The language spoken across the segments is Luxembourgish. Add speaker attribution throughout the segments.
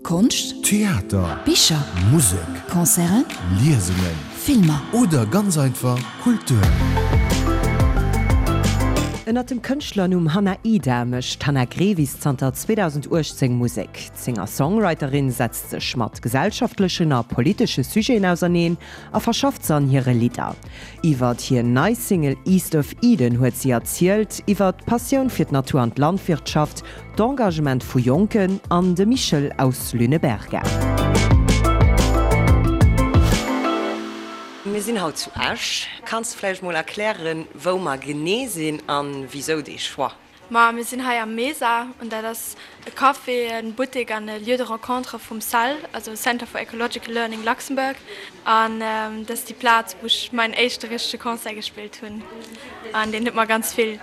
Speaker 1: Konscht,
Speaker 2: Theater,
Speaker 1: Bicher,
Speaker 2: Musek,
Speaker 1: Concerten,
Speaker 2: Liesungen
Speaker 1: Filmer.
Speaker 2: Oder ganz einfach Kultur.
Speaker 3: Ënnert dem Kënschtlernumm Hanna Ida mécht d'Hanna Grevis zanter 2018 Musek. D'Singer-Songwriterin setzt sech mat gesellschaftlechen a politesche Sujeten auserneen a verschafft se an hire Lidder. Iwwert hir nei Single East of Eden huet si erzielt, iwwert d'Passioun fir d'Natur an d'Landwirtschaft, D'Engagement vu Jonken an de Michel aus Lüneberga. Mir sinn haut zu Esch. Kanns de vläicht mol erklären, wou mer genee sinn an wisou dee Choix?
Speaker 4: Ma mir sinn hei am Mesa an dat ass e Café, e Buttek an e Lieu de rencontre vum cell, also Center for Ecological Learning Luxembourg. An dat ass déi Plaz, wou ech mäin éischte richtege Concert gespillt hunn an deen huet mer ganz vill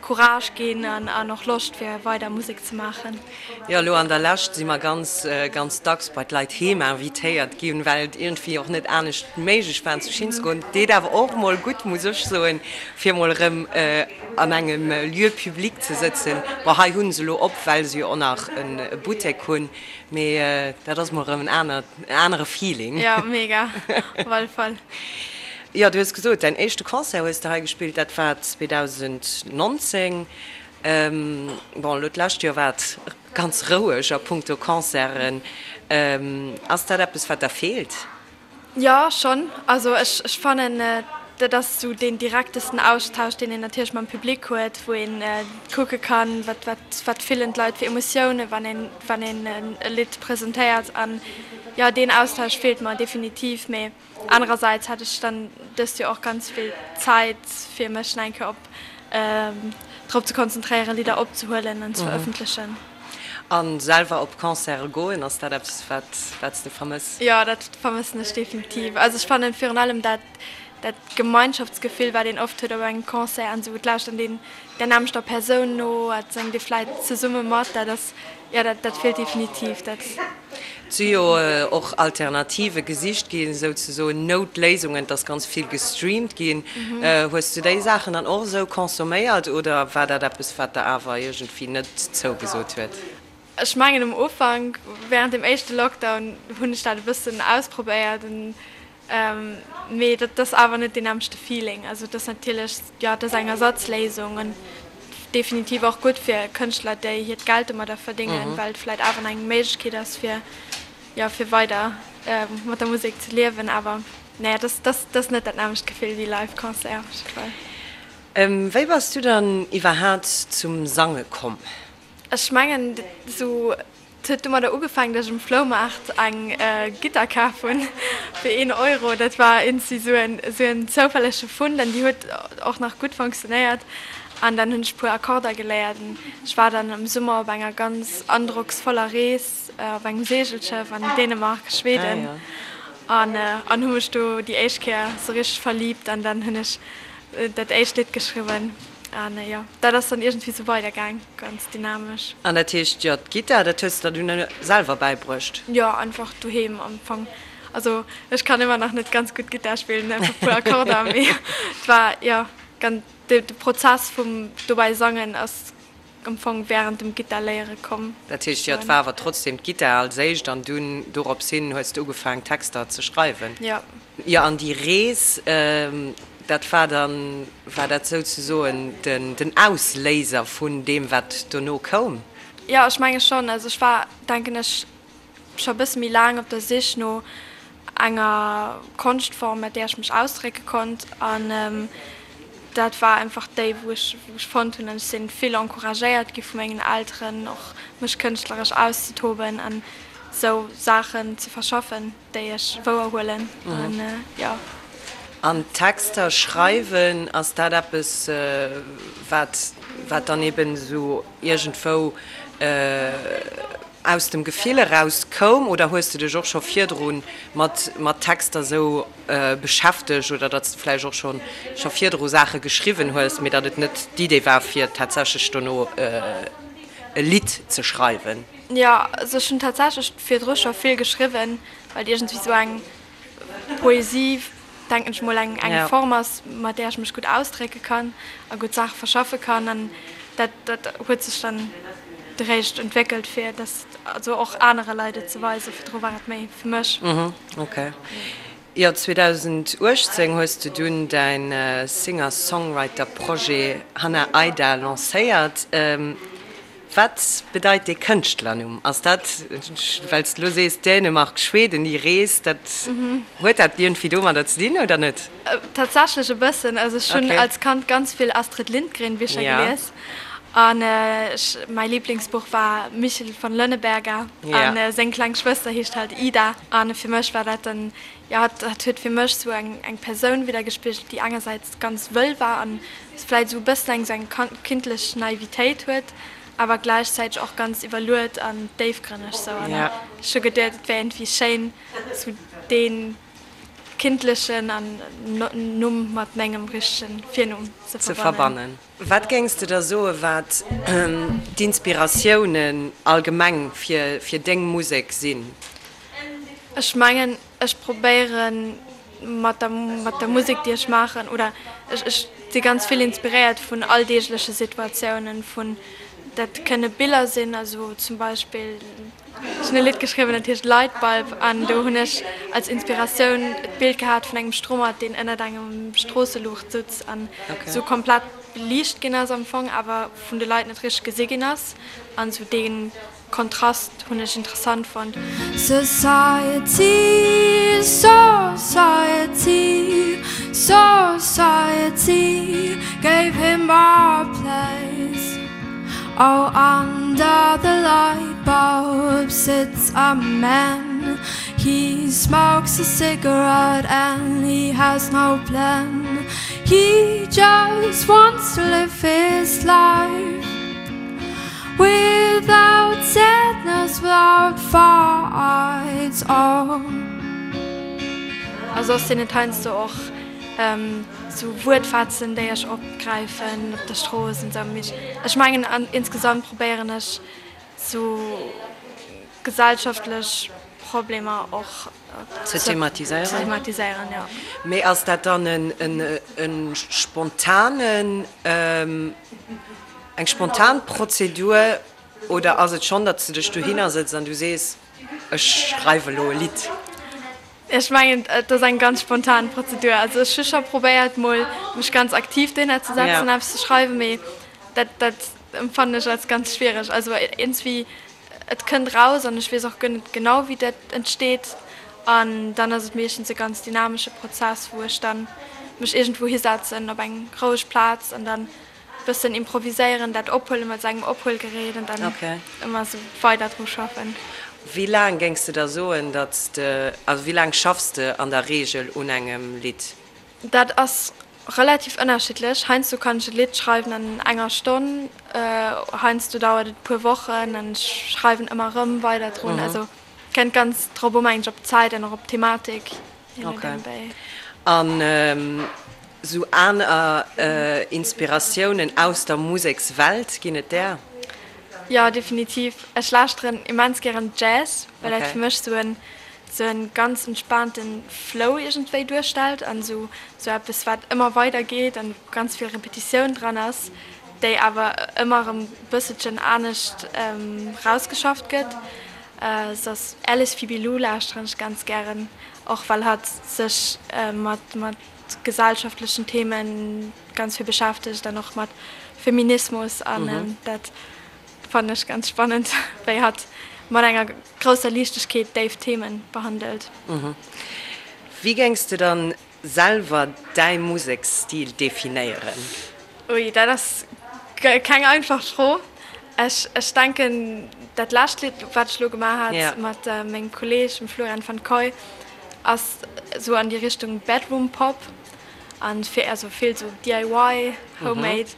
Speaker 4: Courage ginn an och Loscht fir weider Musek ze maachen.
Speaker 3: Jo, elo an der Lescht si mer ganz, ganz dacks bei d'Leit heem invitéiert ginn, well et iergendwéi och net anescht méiglech war zu Schinn ze goen. Deet awer och mol gutt, muss ech soen, fir mol erëm an engem Lieu public ze sëtzen. Bon, hei hu se elo op, well se jo och nach e Buttek hunn, mee dat ass mol erëm en anert, en anere Feeling.
Speaker 4: Jo, mega, op alle Fall.
Speaker 3: Jo, du hues gesot, däin éischte Concert hues de hei gespillt, dat war 2019. Bon, elo d'lescht Joer war et ganz roueg a punkto Concerten. Ass dat eppes, wat der feelt?
Speaker 4: Jo, schonn. Also ech fannen, dat ass esou deen direktesten Austausch, deen een natierlech mam Public huet, wou een kucke kann, wat, wat, wat fillen d'Leit fir Emotiounen, wann een, wann een e Lidd presentéiert. An jo, deen Austausch feelt mer definitiv. Mee Anerersäits hat ech dann dëst Joer och ganz vill Zäit fir mech nach eng Kéier op drop ze konzentréieren Lidder opzehuelen an ze verëffentlechen.
Speaker 3: A selwer op Concerte goen, ass dat eppes wat wat s de vermëss?
Speaker 4: Jo, dat vermëssen ech definitiv. Also ech fannen virun allem dat dat Gemeinschaftsgefill wat een oft huet op engem Concert an esou, et lauschtert een der nämmlechter Persoun no, et séngt ee vläit zesumme mat, dat ass jo dat dat feelt definitiv. Dat.
Speaker 3: Et si jo och Alternative gesicht ginn, souzesoen Noutléisungen, et ass ganz vill gestreamt ginn. Hues du déi Saachen dann och esou consomméiert oder war dat eppes, wat der awer iergendwéi net zougesot huet?
Speaker 4: Ech mengen um Ufank, wärend dem éischte Lockdown, hunn ech dat e bëssen ausprobéiert. Mee dat ass awer net deen nämmlechte Feeling. Also et ass natierlech, jo, et ass eng Ersatzléisung an definitiv och gutt fir Kënschtler, déi hiert Geld domadder verdéngen, well et vläicht awer nach eng Méiglechkeet ass, fir, jo, fir weider mat der Musek ze liewen. Awer naja, et ass, et ass net dat nämmlecht Gefill wéi Live-Concert op jidde Fall.
Speaker 3: Wéi bass du dann iwwerhaat zum Sange komm?
Speaker 4: Ech mengen, esou Et huet domadder ugefaangen, datt ech um Floumaart eng Gittar kaf hunn fir een Euro. Dat war iergendwéi esou en esou en zoufällege Fund an déi huet och nach gutt fonctionnéiert. An dann hunn ech e puer Akkorder geléiert an ech war dann am Summer op enger ganz androcksvoller Rees op engem Seegelschëff an Dänemark, Schweden an an hu mech do déi éischt Kéier esou richteg verliibt an dann hunn ech dat éischt Lidd geschriwwen. An jo, dat ass dann iergendwéi sou weider gaang, ganz dynamesch.
Speaker 3: An dat heescht, jo, d'Gittar, dat hues de der dunn selwer bäibruecht?
Speaker 4: Jo, einfach doheem am Fong. Also ech kann ëmmer nach net ganz gutt Gittar spillen, einfach e puer Akkorder, mee et war, jo, ganz, de Prozess vum dobäi sangen ass am Fong während dem Gittar léiere komm.
Speaker 3: Dat heescht, jo, et war awer trotzdem d'Gittar als éischt an dunn dorops hin hues de ugefaang Texter ze schreiwen?
Speaker 4: Jo.
Speaker 3: Jo, an déi Rees, dat war dann, war dat souzesoen den, den Ausléiser vun deem, wat dono koum?
Speaker 4: Jo, ech menge schonn. Also ech war, denken ech, scho e bësse méi laang op der Sich no enger Konschtform, mat där ech mech ausdrécke konnt. An dat war einfach déi, wou ech, wou ech fonnt hunn. An ech si vill encouragéiert gi vu mengen Elteren, och mech kënschtleresch auszetoben an esou Saachen ze verschaffen. Déi ech wouer huelen an jo.
Speaker 3: An Texter schreiwen, ass dat eppes, wat wat dann eben esou iergendwou aus dem Gefill eraus koum oder hues de dech och scho virdru mat mat Texter esou beschäftegt oder datt s de vläicht och scho scho virdru Saache geschriwwen hues, mee datt et net d'Idee war fir tatsächlech dono e Lidd ze schreiwen?
Speaker 4: Jo, also ech hunn tatsächlech virdru scho vill geschriwwen, well iergendwéi sou eng Poesie, denken ech mol, eng eng Form ass, mat där ech mech gutt ausdrécke kann a gutt Saache verschaffe kann. An dat dat huet sech dann. eréischt entwéckelt fir dass also och anere Leit et ze weisen. Virdru war et méi fir mech.
Speaker 3: Ok. Jo, 2018 hues de dunn däin Singer-Songwriter-Projet Hannah Aida lancéiert. Wat bedeit dee Kënschtlernumm? Ass dat, well s de elo sees Dänemark, Schweden, déi Rees, dat, huet dat iergendwéi domadder ze dinn oder net?
Speaker 4: Tatsächlech e bëssen. Also ech hunn als Kand ganz vill Astrid Lindgren Bicher gelies an ech, mäi Liblingsbuch war Michel von Lönneberga an seng kleng Schwëster heescht halt Ida an fir mech war dat dann, jo, dat huet fir mech sou eng eng Persoun widdergespigelt, déi engersäits ganz wëll war an vläit esou e bëssen eng sou eng kindlech Naivitéit huet, awer gläichzäiteg och ganz iwwerluet an déifgrënneg sou an ech hu geduet, et wär iergendwéi schéin sou dee kindlechen an Numm mat mengem richtegen Virnumm ze verbannen.
Speaker 3: Wat géings de da soe wat d'Inspiratiounen allgemeng fir deng Musek sinn?
Speaker 4: Ech mengen ech probéiere mat der mat der Musek déi ech maachen oder ech ech si ganz vill inspiréiert vun alldeegleche Situatiounen, vun dat kënne Biller sinn, also zum Beispill Ech hunn e Lidd geschriwwen, dat heescht Lightbulb an do hunn ech als Inspiratioun d'Bild gehat vun engem Stromert, deen ënnert engem Stroosseluucht sutz an esou komplett beliicht ginn ass am Fong, awer vun de Leit net richteg gesi ginn ass. An esou dee Kontrast hunn ech interessant fonnt. Society, society, society gave him a place. Oh under the light bulb sits a man He smokes a cigarette and he has no plan He just wants to live his life Without sadness, without fights oh. A soss sinn et heiansdo och Sou Wuertfetzen, déi ech opgräifen op der Strooss an sou. Mee ech mengen insgesamt probéieren ech sou gesellschaftlech Problemer och
Speaker 3: ze thematiséieren, jo. Mee ass dat dann e spontanen, eng spontan Prozedur oder ass et schonn, datt s de dech dohinner sëtz an du sees, ech schreiwe elo e Lidd?
Speaker 4: Ech mengen, et ass eng ganz spontan Prozedur. Also ech hu scho probéiert mol mech ganz aktiv dohinner ze setzen an eppes ze schreiwen, mee dat dat empfannen ech als ganz schwiereg. Also iergendswéi, et kënnt raus an ech weess och guer net genau wéi dat entsteet an dann ass et meeschtens e ganz dynamesche Prozess, wou ech dann mech iergendwou hisetzen op eng roueg Plaz an dann Bëssen improviséieren, dat ophuelen mat sengem Ophuelgerät an dann ëmmer esou weider dru schaffen.
Speaker 3: Wéi laang géings de da soen, datt s de, also wéi laang schaffs de an der Reegel un engem Lidd?
Speaker 4: Dat ass relativ ënnerschiddlech. Heiansdo kann ech e Lidd schreiwen an enger Stonn, heiansdo dauert et e puer Wochen an ech schreiwen ëmmer erëm weider drun. Also kënnt ganz drop u mengen ech, op d'Zäit an och op d'Thematik.
Speaker 3: Ok. An sou aner Inspiratiounen aus der Musekswelt, ginn et där?
Speaker 4: Jo, definitiv. Ech lauschteren immens gären Jazz, well dat fir mech sou en sou en ganz entspaanten Flow iergendwéi duerstellt an sou sou eppes wat ëmmer weider geet an wou ganz vill Repetitioun dran ass, déi awer ëmmer erëm bësselchen anescht rausgeschafft gëtt. Soss Alice Phoebe Lou lauschteren ech ganz gären, och well hatt sech mat mat gesellschaftlechen Themen ganz vill beschäftegt an och mat Feminismus an dat fannen ech ganz spannend, wéi hatt mat enger grousser Liichtegkeet déif Themen behandelt.
Speaker 3: Wéi géings de dann Selwer däi Museksstil definéieren?
Speaker 4: Ui, dat ass keng einfach Fro. Ech ech denken, dat lescht Lidd, wat ech elo gemaach hat mat mengem Kolleeg, dem Florian van Coy, ass esou an déi Richtung Bedroom Pop an fir also vill sou DIY, Homemade.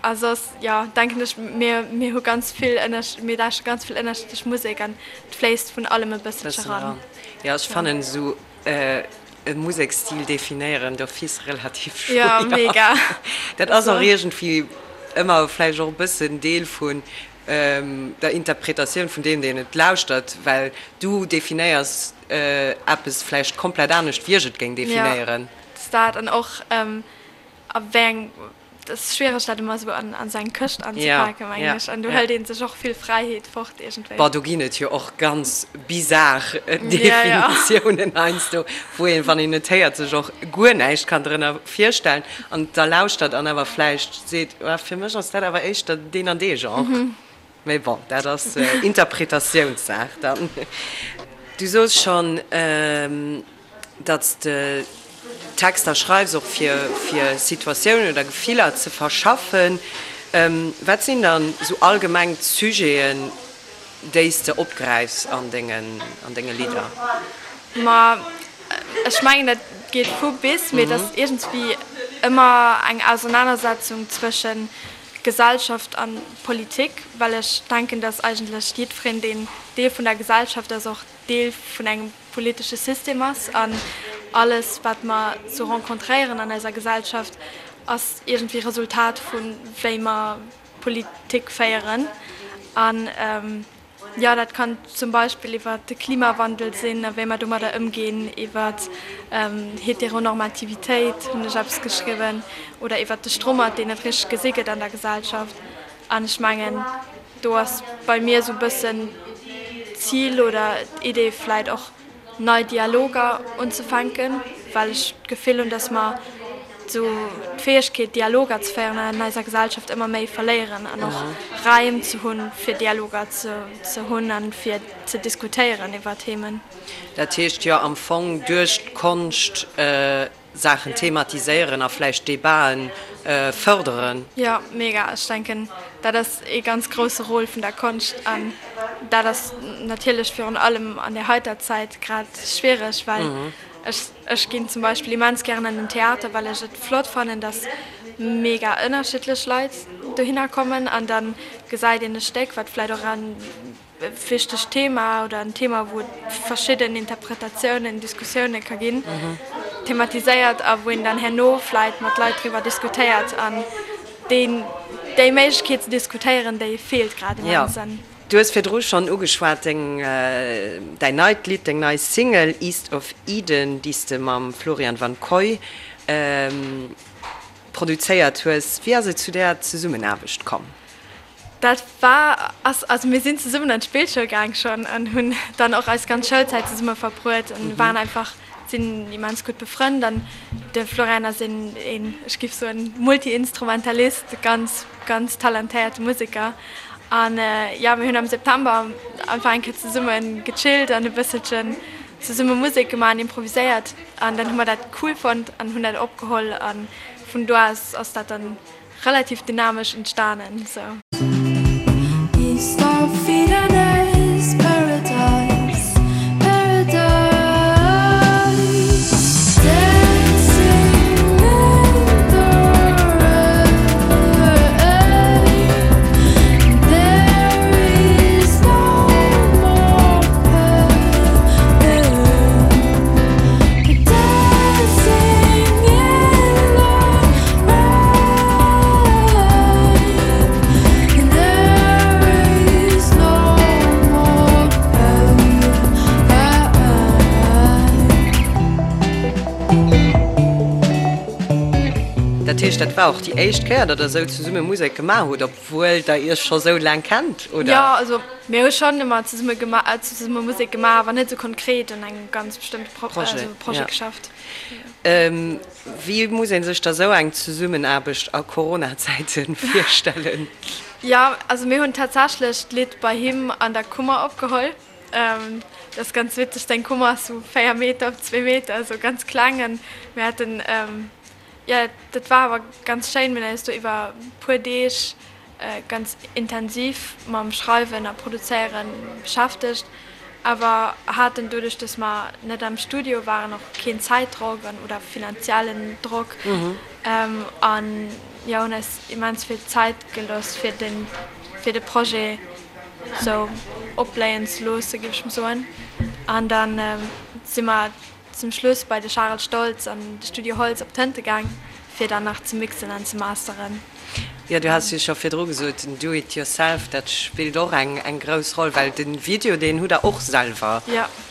Speaker 4: A soss, jo, denken ech, mir mir hu ganz vill ënnersch mir lauschteren ganz vill ënnerschiddlech Musek an et fléisst vun allem e bësselche ran.
Speaker 3: Jo, ech fannen esou E Museksstil definéieren d'office relativ schwéier.
Speaker 4: Jo, mega.
Speaker 3: Dat ass och iergendwéi ëmmer vläicht och e bëssen Deel vun der Interpretatioun vun deem, deen et lauschtert, well du definéiers eppes vläicht komplett anescht, wéi ech et géing definéieren.
Speaker 4: Jo, dat ass dat. An och a wéi eng. Et ass schwiereg dat ëmmer esou an esou eng Këscht anzepaken, mengen ech. An do hëlt ee sech och vill Fräiheet fort iergendwéi.
Speaker 3: Bon, do ginn et jo och ganz bizar Definitiounen heiansdo, wou een, wann een et héiert, sech och guer näischt kann drënner virstellen an da lauschtert an awer vläicht seet, ah, fir mech ass dat awer éischter deen an dee Genre. Mee bon, dat ass Interpretatiounssaach dann. Du soos schonn, datt s de Texter schreifs och fir fir Situatiounen oder Gefiller ze verschaffen. Wat sinn dann esou allgemeng d'Sujeten, déi s de opgräifs an dengen an denge Lidder?
Speaker 4: Ma ech mengen dat geet vu bis, mee et ass iergendswéi ëmmer eng Ausernanersetzung zwëschen Gesellschaft an Politik, well ech denken, dass eigentlech jiddwereen, deen Deel vun der Gesellschaft ass, och Deel vun engem politesche System ass. An alles, wat mer sou rencontréieren an eiser Gesellschaft, ass iergendwéi Resultat vu wéi mer Politik féieren. An Jo, dat kann zum Beispill iwwer de Klimawandel sinn a wéi mer domadder ëmginn, iwwer Heteronormativitéit hunn ech eppes geschriwwen oder iwwer de Strommert, deen net richteg gesi gëtt an der Gesellschaft. An ech mengen, do ass bei mir esou e bëssen d'Zil oder d'Idee vläit och, nei Dialoger unzefänken, well ech d'Gefill hunn, dass mer esou d'Fäegkeet, Dialoger ze féieren an eiser Gesellschaft ëmmer méi verléieren an och Raim ze hunn, fir Dialoger ze hunn a fir ze diskutéieren iwwer Themen.
Speaker 3: Dat heescht jo am Fong duerch d'Konscht Saachen thematiséieren a vläicht Debaten fërderen.
Speaker 4: Jo, mega. Ech denken, dat ass ee ganz grousse Rôle vun der Konscht. An dat ass natierlech virun allem an der heiter Zäit grad schwiereg, well ech, ech ginn zum Beispill immens gären an den Theater, well ech et flott fannen, dass mega ënnerschiddlech Leit dohinner kommen an da gesäit een e Stéck, wat vläicht och an wichtegt Thema oder en Thema, wou et verschidden Interpretatiounen, Diskussioune ka ginn, thematiséiert a wou een dann herno vläit mat Leit driwwer diskutéiert. An deen, déi Méiglechkeet ze diskutéieren, déi feelt grad immens.
Speaker 3: Jo, du hues virdru schonn ugeschwat, deng, däin neit Lidd, deng nei Single East of Eden, déi s de mam Florian Van Coy produzéiert hues. Wéi ass et zu där Zesummenaarbecht komm?
Speaker 4: Dat war, ass, also mir sinn zesummen an d'Spillschoul gaang schonn an hunn dann och eis ganz Schoulzäit zesumme verbruet an waren einfach, sinn immens gutt befrënnt. An de Florian ass een, een, ech giff soen, Multi-Instrumentalist, ganz, ganz talentéierte Museker. An jo, mir hunn am September einfach eng Kéier zesumme gechillt an e bësselchen zesumme Musek gemaach an improviséiert. An dann hu mer dat cool fonnt an hunn dat opgeholl an vun do aus ass dat dann Relativ dynamesch entstanen sou.
Speaker 3: Dat heescht, dat war och déi éischt Kéier, datt der esou zesumme Musek gemaach hutt, obwuel der Iech scho sou laang kennt, oder?
Speaker 4: Jo, also mir hu schonn ëmmer zesumme zesumme Musek gemaach, awer net esou konkret un engem ganz bestëmmte Projet geschafft.
Speaker 3: Wéi muss ee sech da sou eng Zesummenaarbecht a Corona-Zäite virstellen?
Speaker 4: Jo, also mir hunn tatsächlech d'Lidd bei him an der Kummer opgeholl. Dat ass ganz witzeg, seng Kummer ass sou 4 Meter op 2 Meter, esou ganz kleng. An mir haten, jo, dat war awer ganz schéin, mir hunn eis do iwwer e puer Deeg ganz intensiv mam Schreiwen a Produzéiere beschäftegt, awer haten doduerch, dass mer net am Studio waren, och keen Zäitdrock an oder finanziellen Drock an jo hunn eis immens vill Zäit gelooss fir den fir de Projet sou opbléien ze loosse géif ech mol soen. An dann si mer Zum Schluss bei de Charel Stoltz an de Studio Holtz op d'Tënte gaang, fir dann nach ze mixen an ze masteren.
Speaker 3: Jo, du has jo scho virdru gesot, den Do it yourself, dat spillt och eng eng grouss Roll, well de Video, deen hutt der och selwer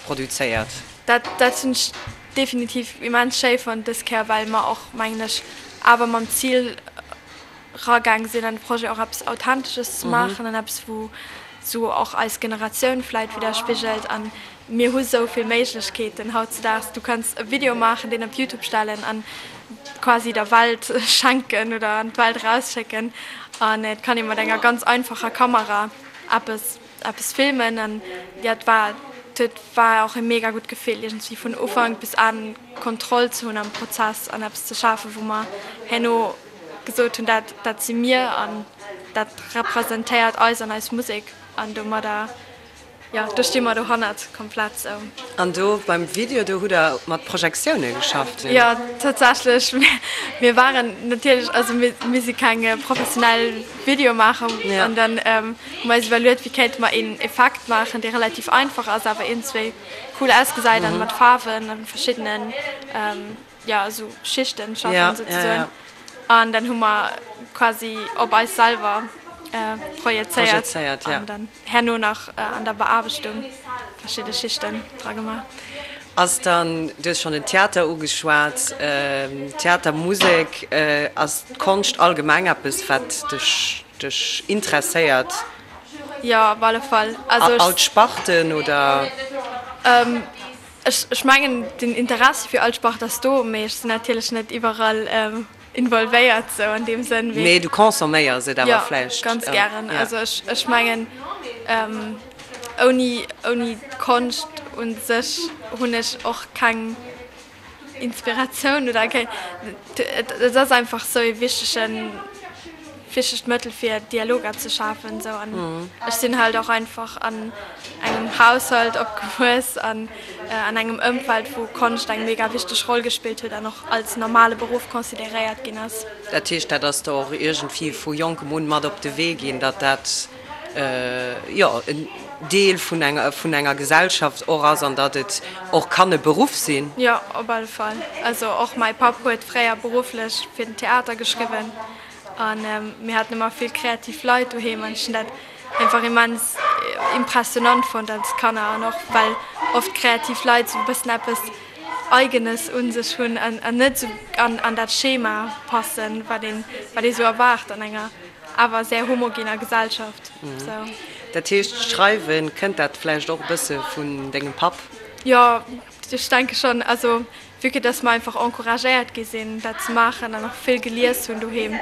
Speaker 3: produzéiert.
Speaker 4: Dat dat hunn ech definitiv immens schéi fonnt dës Kéier, well mer och, mengen ech, awer mam Zil. ragaang sinn an de Projet och eppes Authentesches ze maachen an eppes wou sou och eis Generatioun vläit widderspigelt. An mir hu sou vill Méiglechkeeten hautzedaags, du kanns e Video maachen, deen op Youtube stellen an quasi der Welt schenken oder an d'Welt erausschécken. An et kann ee mat enger ganz einfacher Kamera eppes eppes filmen. An jo, et war et war och e mega gutt Gefill iergendwéi vun Ufank bis Enn Kontroll ze hunn am Prozess an eppes ze schafen, wou mer herno gesot hunn, dat dat si mir an dat representéiert eis an eis Musek an domadder, jo, do sti mer dohannert komplett sou.
Speaker 3: An do beim Video, do hutt Der mat Projektioune geschafft?
Speaker 4: Jo, tatsächlech. Mir waren natierlech, also mir mir si keng professionell Videomaacher an dann hu mer eis iwwerluet, wéi kéinte mer een Effekt maachen, dee relativ einfach ass, awer iergendzwéi cool ausgesäit an mat Faarwen a verschiddenen, jo esou Schichten schaffen souzesoen an dann hu mer quasi op eis selwer projezéiert an dann herno nach an der Beaarbechtung verschidde Schichten dra gemaach.
Speaker 3: Ass dann, du hues schonn den Theater ugeschwat, Theater, Musek, ass d'Konscht allgemeng eppes wat dech dech interesséiert?
Speaker 4: Jo, op alle Fall.
Speaker 3: All d'Sparten oder?
Speaker 4: Ech mengen, den Interessi fir all Sport ass do, mee ech sinn natierlech net iwwerall involvéiert sou an deem Sënn.
Speaker 3: Mee du consomméiers et awer vläicht?
Speaker 4: Jo, ganz gären. Also ech mengen, ouni ouni d'Konscht u sech hunn ech och keng Inspiratioun oder keng, et ass einfach sou ee wichtegen wichtegt Mëttel fir Dialoger ze schafen sou an ech sinn halt och einfach an engem Haushalt opgewuess an an engem Ëmfeld wou Konscht eng mega wichteg Roll gespillt huet an och als normale Beruff consideréiert ginn ass.
Speaker 3: Dat heescht dat ass der och iergendwéi vu jonkem un mat op de Wee ginn, datt dat jo en Deel vun enger vun enger Gesellschaft och ass an datt et och kann e Beruff sinn?
Speaker 4: Jo, op alle Fall. Also och mäi Papp huet fréier berufflech fir den Theater geschriwwen An mir haten ëmmer vill kreativ Leit doheem an ech hunn dat einfach immens impressionant fonnt als Kanner an och well oft kreativ Leit sou e bëssen eppes Eigenes un sech hunn an net sou an dat Schema passen, wat een wat ee sou erwaart an enger awer sehr homogener Gesellschaft. Sou.
Speaker 3: Dat heescht, d'Schreiwen, kënnt dat vläicht och e bësse vun dengem Papp?
Speaker 4: Jo, ech denke schonn. Also Vue que dass mer einfach encouragéiert gi sinn, dat ze maachen an och vill gelies hunn doheem,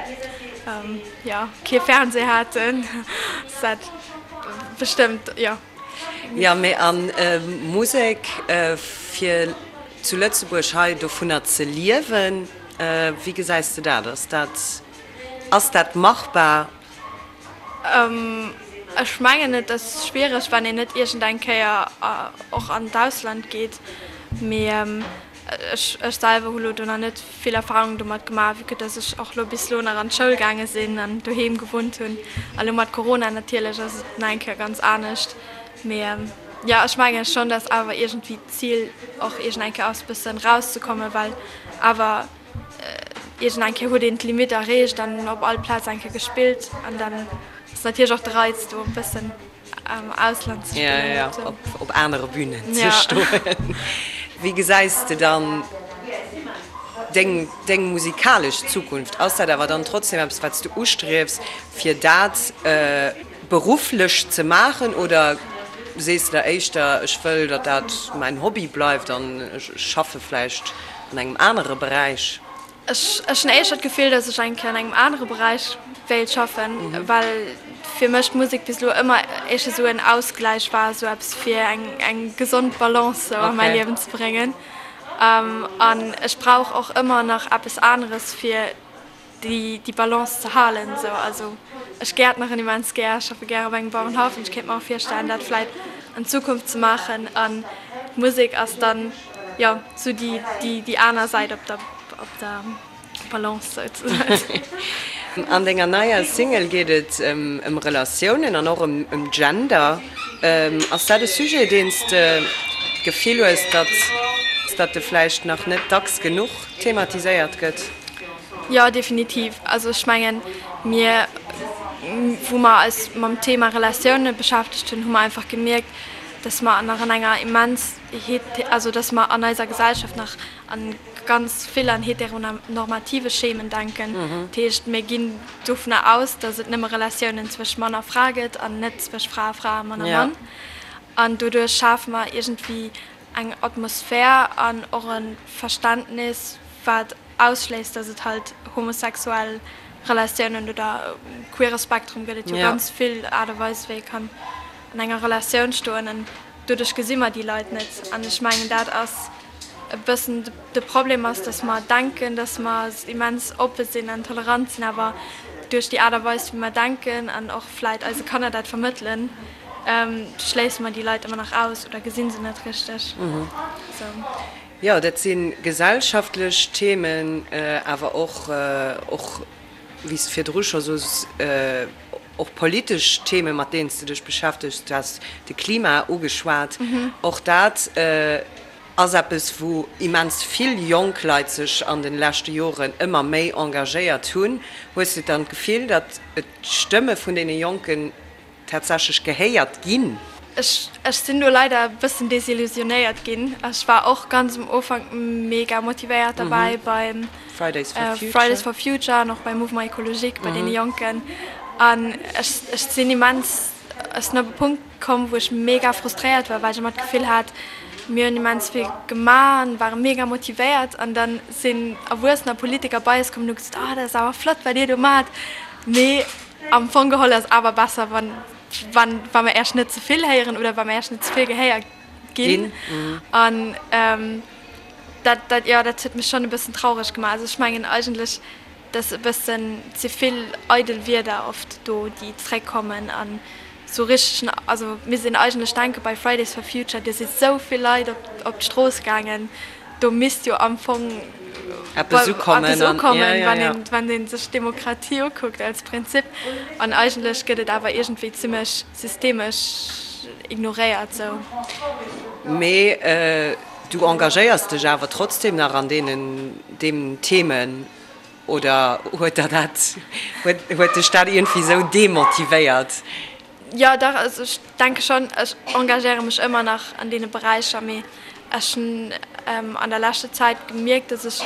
Speaker 4: jo, kee Fernseh haten, ass dat bestëmmt, jo.
Speaker 3: Jo, mee a Musek, fir zu Lëtzebuerg hei dovunner ze liewen, wéi gesäis de dat? Ass dat, ass dat machbar?
Speaker 4: Ech mengen et ass schwiereg wann een net iergend eng Kéier och an d'Ausland geet, mee ech ech selwer hu lo do nach net vill Erfahrung domat gemaach, vue que dass ech och lo bis lo nach an d'Schoul gaange sinn an doheem gewunnt hunn a lo mat Corona natierlech ass et nach eng Kéier ganz anescht. Mee jo ech menge schonn, dass awer iergendwéi d'Zil och iergend eng Kéier ass bëssen rauszekommen, well awer Iergend eng Kéier huet een d'Limite erreecht an op all Plaz eng Kéier gespillt an dann ass natierlech och de Reiz do e bëssen am Ausland ze spillen.
Speaker 3: Jo, jo, op anere Bünen ze stoen. Wéi gesäis de dann deng, deng musikalesch Zukunft? Ass dat awer dann trotzdem eppes, wat s du ustriefs, fir dat berufflech ze maachen oder sees de der éischter, ech wëll, datt dat mäin Hobby bleift an ech schaffe vläicht An engem anere Beräich?
Speaker 4: Ech hunn éischter d'Gefill, datt ech eng Kéier an engem anere Beräich wéilt schaffen, well fir mech d'Musek bis elo ëmmer éischter esou en Ausgläich war, esou eppes fir eng eng gesond Balance sou a mäi Liewen ze bréngen. An ech brauch och ëmmer nach eppes aneres fir déi Balance ze halen esou. Also ech gäertneren immens gär, ech schaffe gär op engem Bauerenhaff an ech kéint mer och virstellen dat vläit an Zukunft ze maachen an d'Musek ass dann jo sou déi aner Säit op der op der Balance souzesoen.
Speaker 3: An denger neier Single geet et ëm Relatiounen an och ëm Gender. Ass dat e Sujet deen s de d'Gefill hues, datt datt e vläicht nach net dacks genuch thematiséiert gëtt?
Speaker 4: Jo, definitiv. Also ech mengen, mir, wou mer eis mam Thema Relatioune beschäftegt hunn, hu mer einfach gemierkt, dass mer nach an enger immens, also dass mer an eiser Gesellschaft nach a. ganz vill an heteronormative Schemen denken. Dat heescht, mir ginn dovunner aus, datt et nëmme Relatiounen zwëscht Mann a Fra gëtt an net zwëscht Fra a Fra a Mann a Mann. An doduerch schafe mer iergendwéi eng Atmosphär an och e Verständnis, wat ausschléisst, datt et halt homosexuell Relatiounen oder queere Spektrum gëtt et jo ganz vill Aart a Weise wéi ee kann an enger Relatioun stoen an doduerch gesi mer déi Leit net. An ech mengen dat ass e bëssen de Problem ass, datt mer denken, datt mer immens oppe sinn an tolerant sinn, awer duerch déi Aart a Weis wéi mer denken an och vläit eise Kanner dat vermëttelen, schléisse mer déi Leit ëmmer nach aus oder gesi se net richteg. Sou.
Speaker 3: Jo, dat si gesellschaftlech Themen, awer och, och wéi s de virdru scho soos, och politesch Themen, mat deenen s de dech beschäftegs. Du has de Klima ugeschwat. Och dat ass eppes, wou immens vill jonk Leit sech an de leschte Joren ëmmer méi engagéiert hunn. Hues de dann d'Gefill, datt d'Stëmme vun deene Jonken tatsächlech gehéiert ginn?
Speaker 4: Ech sinn do leider e bëssen desillusionéiert ginn. Ech war och ganz um Ufank mega motivéiert derbäi beim Fridays for Future an och beim Mouvement Ecologique bei deene Jonken. An ech sinn immens, ech sinn op e Punkt komm, wou ech mega frustréiert war, well ech ëmmer d'Gefill hat, mir hunn immens vill gemaach an ware mega motivéiert. An da sinn Erwuessener, Politiker bei eis komm an hu gesot, oh dat ass awer flott, wat dir do maacht, mee Am Fong geholl ass awer besser, wann, wann, wa mer Äech net ze vill héieren oder wa mer Äech net ze vill gehéiert ginn. An dat, dat, jo, dat huet mech schonn e bëssen traureg gemaach. Also ech mengen eigentlech, dass e bëssen ze vill eidel Wierder oft do, déi zréckkommen an esou richteg, also misst een eigentlech denke bei Fridays for Future, do si sou vill Leit op, op d'Strooss gaangen, Do misst jo am Fong
Speaker 3: eppes ukommen,
Speaker 4: wann ee sech d'Demokratie ukuckt als Prinzip. An eigentlech gëtt et awer iergendwéi zimmlech systemesch ignoréiert. Sou.
Speaker 3: Mee du engagéiers dech awer trotzdem nach an deenen deem Themen, oder huet der dat, huet dech dat iergendwéi sou demotivéiert?
Speaker 4: Jo, dach, also ech denke schonn, ech engagéiere mech ëmmer nach an deene Beräicher, mee ech hunn an der leschter Zäit gemierkt, dass ech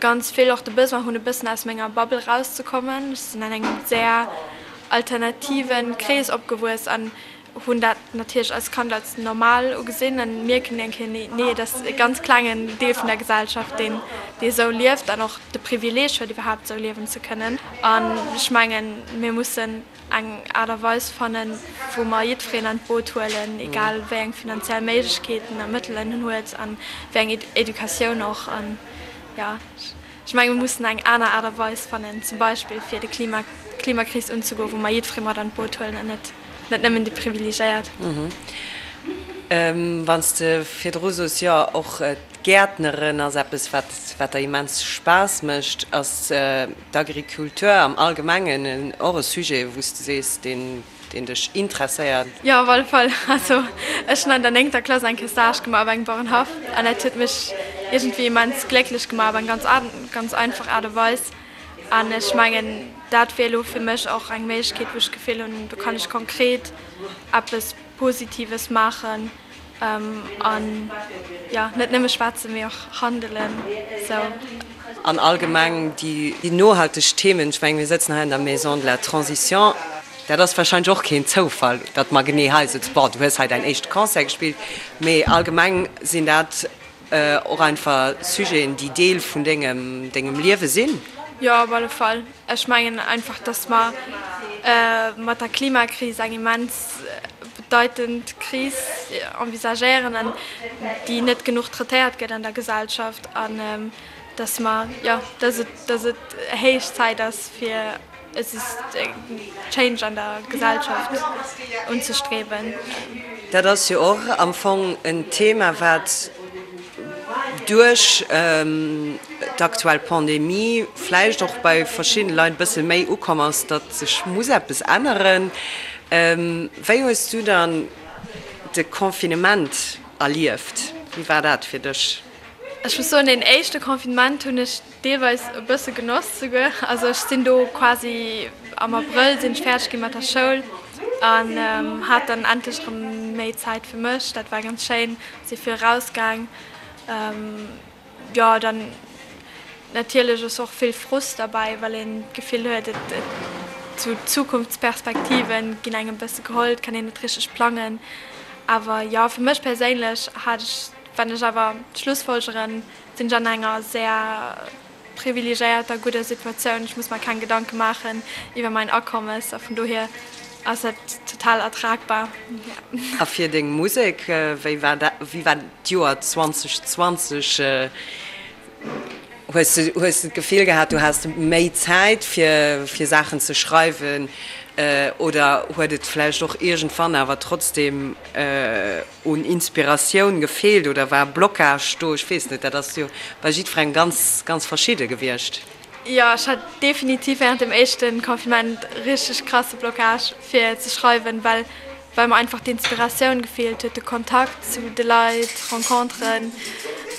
Speaker 4: ganz vill och de Besoin hunn, e bëssen aus menger Bubble rauszekommen. Ech sinn an engem sehr alternativen Krees opgewuess an hunn dat natierlech als Kand als normal ugesinn an mierken eng Kéier, nee, nee, et ass e ganz klengen Deel vun der Gesellschaft, deen, dee esou lieft an och de Privileeg huet, iwwerhaapt esou liewen ze kënnen. An ech mengen, mir mussen eng Aart a Weis fannen, wou mer jiddwereen an d'Boot huelen, egal wéi eng finanziell Méiglechkeeten a Mëttelen en huet an wéi eng Educatioun och. An jo, ech menge mir mussen eng aner Aart a Weis fannen, zum Beispill fir de Klima, d'Klimakris unzegoen, wou mer jiddweree mat an d'Boot huelen an net, net nëmmen déi Privilegéiert.
Speaker 3: Wann s de virdru soos, jo och d'Gäertneren ass eppes, wat, wat der immens Spaass mécht, ass D'Agriculture am Allgemengen och e Sujet, wou s de sees, deen dech interesséiert?
Speaker 4: Jo, op alle Fall. Also ech hunn an der néngter Klass eng Kéier Stage gemaach op engem Bauerenhaff an dat huet mech iergendwéi immens glécklech gemaach op eng ganz ganz einfach Aart a Weis. An ech mengen, dat wier elo fir mech och eng Méiglechkeet, wou ech d'Gefill hunn, do kann ech konkret eppes Positives maachen. An jo, net nëmme schwätzen, mee och handelen. Sou.
Speaker 3: An allgemeng déi nohalteg Themen, ech mengen, mir sëtzen hei an der Maison de la Transition, dat ass wahrscheinlech och keen Zoufall, datt mer genee hei sëtzen. Bon, du hues hei däin éischte Concert gespillt, mee allgemeng sinn dat och einfach Sujeten, déi Deel vun dengem, dengem Liewe sinn.
Speaker 4: Jo, op alle Fall. Ech mengen einfach, datt mer mat der Klimakris eng immens bedeitend Kris envisagéieren an déi net genuch traitéiert gëtt an der Gesellschaft an datt mer, jo, datt et, datt et héich Zäit ass fir e Change an der Gesellschaft unzestreben.
Speaker 3: Dat ass jo och am Fong en Thema, wat duerch d'aktuell Pandemie vläicht och bei verschiddene Leit e bësse méi ukomm ass, datt sech muss eppes änneren. Wéi hues du dann de Confinement erlieft? Wéi war dat fir dech?
Speaker 4: Ech muss soen, deen éischte Confinement hunn ech deelweis e bësse genoss souguer. Also ech sinn do quasi am Abrëll sinn ech fäerdeg gi mat der Schoul an hat dann endlech erëm méi Zäit fir mech. Dat war ganz schéin, si vill rausgaang. Jo, dann. Natierlech ass och vill Frust derbäi, well een d'Gefill huet, et sou d'Zukunftsperspektive ginn engem e bësse geholl, et kann een net richteg plangen. Awer jo, fir mech perséinlech hat ech, wann ech awer schlussfolgeren, sinn ech an enger sehr privilegéierter, gudder Situatioun. Ech muss mer keng Gedanke maachen iwwer mäin Akommes a vun dohier ass dat total ertragbar.
Speaker 3: A fir deng Musek, wéi war dat, wéi war d'Joer 2020? Hues de, hues de d'Gefill gehat, du has méi Zäit fir, fir Saachen ze schreiwen oder huet et vläicht och iergendwann awer trotzdem un Inspiratioun gefeelt oder war Blocage do? Ech weess net, dat ass jo bei jiddwerengem ganz, ganz verschidde gewiescht.
Speaker 4: Jo, ech hat definitiv während dem éischte Confinement richteg krasse Blocage fir ze schreiwen, well well mer einfach d'Inspiratioun gefeelt huet, de Kontakt zu de Leit, Renconteren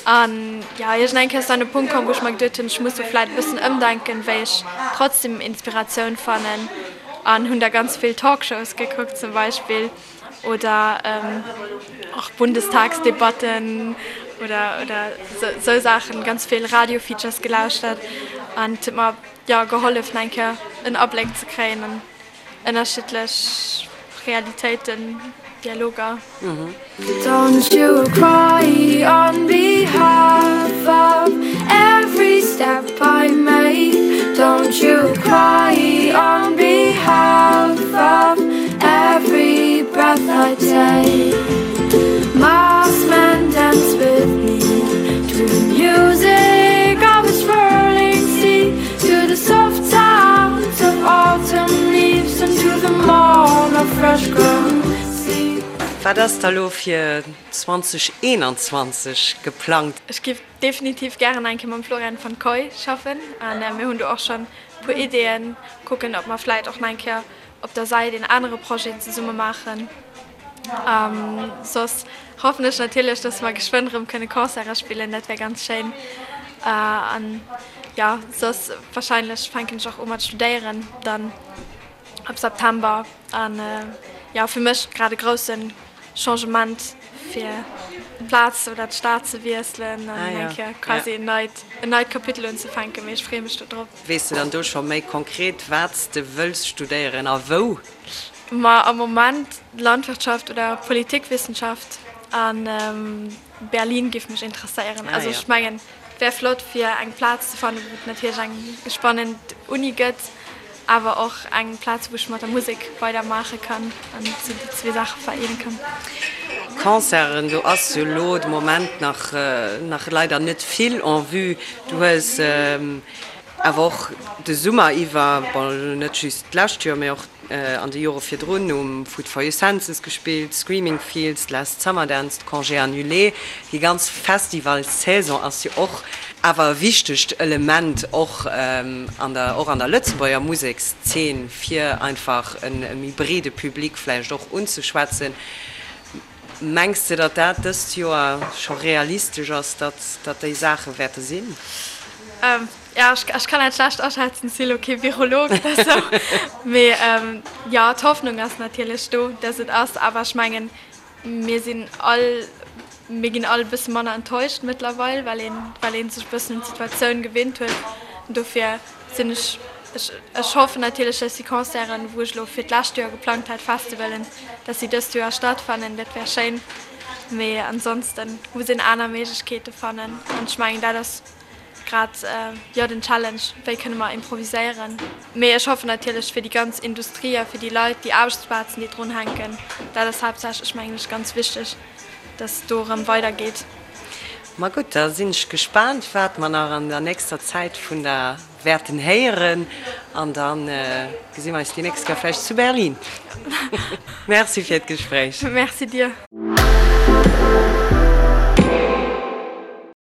Speaker 4: an jo, iergend eng Kéier ass dann e Punkt komm, wou ech mer geduet hunn, ech muss do vläit e bëssen ëmdenken, wéi ech trotzdem Inspiratioun fannen an hunn da ganz vill Talkshows gekuckt zum Beispill. Oder och Bundestagsdebatten oder oder sou Saachen, ganz vill Radio-Features gelauschtert an et huet mer jo gehollef nach eng Kéier en Abléck ze kréien an ënnerschiddlech Realitéiten, Dialoger. Don't you cry on behalf of every step I make Don't you cry on behalf of every breath I take Masked men dance with me To the music of a swirling sea To the soft sounds of autumn leaves And to the morn of fresh grown seed
Speaker 3: Wat ass da lo fir 2021 geplangt?
Speaker 4: Ech giff definitiv gären eng Kéier mam Florian van Kooij schaffen an mir hunn do och schonn e puer Ideeën, kucken ob mer vläit och nach eng Kéier op der Säit een anere Projet zesumme maachen. Soss hoffen ech natierlech, dass mer geschwënn erëm kënne Concerte spillen, dat wär ganz schéin. An jo, soss warscheinlech fänken ech och u mat studéieren dann ab September. An jo, fir mech grad e grousse Changement fir d'Plaz oder d'Stad ze wiesselen an eng Kéier quasi en neit, en neit Kapitel unzefänken, mee ech freeë mech do drop.
Speaker 3: Weess de dann do scho méi konkret, wat s de wëlls studéieren a wou?
Speaker 4: Ma am Moment Landwirtschaft oder Politikwissenschaft an Berlin géif mech interesséieren. Also ech mengen, et wär flott fir eng Plaz ze fannen, wou et natierlech eng spannend Uni gëtt, awer och eng Plaz, wou ech mat der Musek weider maache kann an esou déi zwee Saache vereene kann.
Speaker 3: Concerten, do ass jo elo de Moment nach nach leider net vill en vue. Du hues awer och de Summer iwwer, bon elo net just d'lescht Joer, mee och an de Jore virdrun um Food for Your Senses gespillt, Screaming Fields, Last Summer Dance, Congé Annulé. Déi ganz Festivalsaison ass jo och awer e wichtegt Element och an der och an der Lëtzebuerger Musekszeen, fir einfach e méi breede Public vläicht och unzeschwätzen. Mengs de, datt dat dëst Joer scho realistesch ass, datt datt déi Saache wäerte sinn?
Speaker 4: Jo, ech kann dat schlecht aschätzen, si lo kee Virolog oder sou. Mee jo, d'Hoffnung ass natierlech do, datt et ass. Awer ech mengen, mir sinn all, mir ginn all e bësse manner enttäuscht mëttlerweil, well een, well ee sech e bëssen un d'Situatioun gewinnt huet. Dofir sinn ech, ech, ech hoffen natierlech, datt déi Concerten, wou ech elo fir d'lescht Joer geplangt hat, Festivalen, datt si dëst Joer stattfannen. Dat wär schéin. Mee ansonsten muss een aner Méiglechkeete fannen. An ech mengen, dat ass grad, jo, den Challenge, wéi kënne mer improviséieren. Mee ech hoffen natierlech fir déi ganz Industrie a fir déi Leit, déi Aarbechtsplazen, déi drun hänken, dat ass haaptsächlech, mengen ech, ganz wichteg, datt do erëm weidergeet.
Speaker 3: Ma gutt, da sinn ech gespaant, wat mer nach an der nächster Zäit vun der wäerten héieren. An da gesi mer eis déi nächst Kéier vläicht zu Berlin. Merci fir d'Gespréich.
Speaker 4: Merci dir.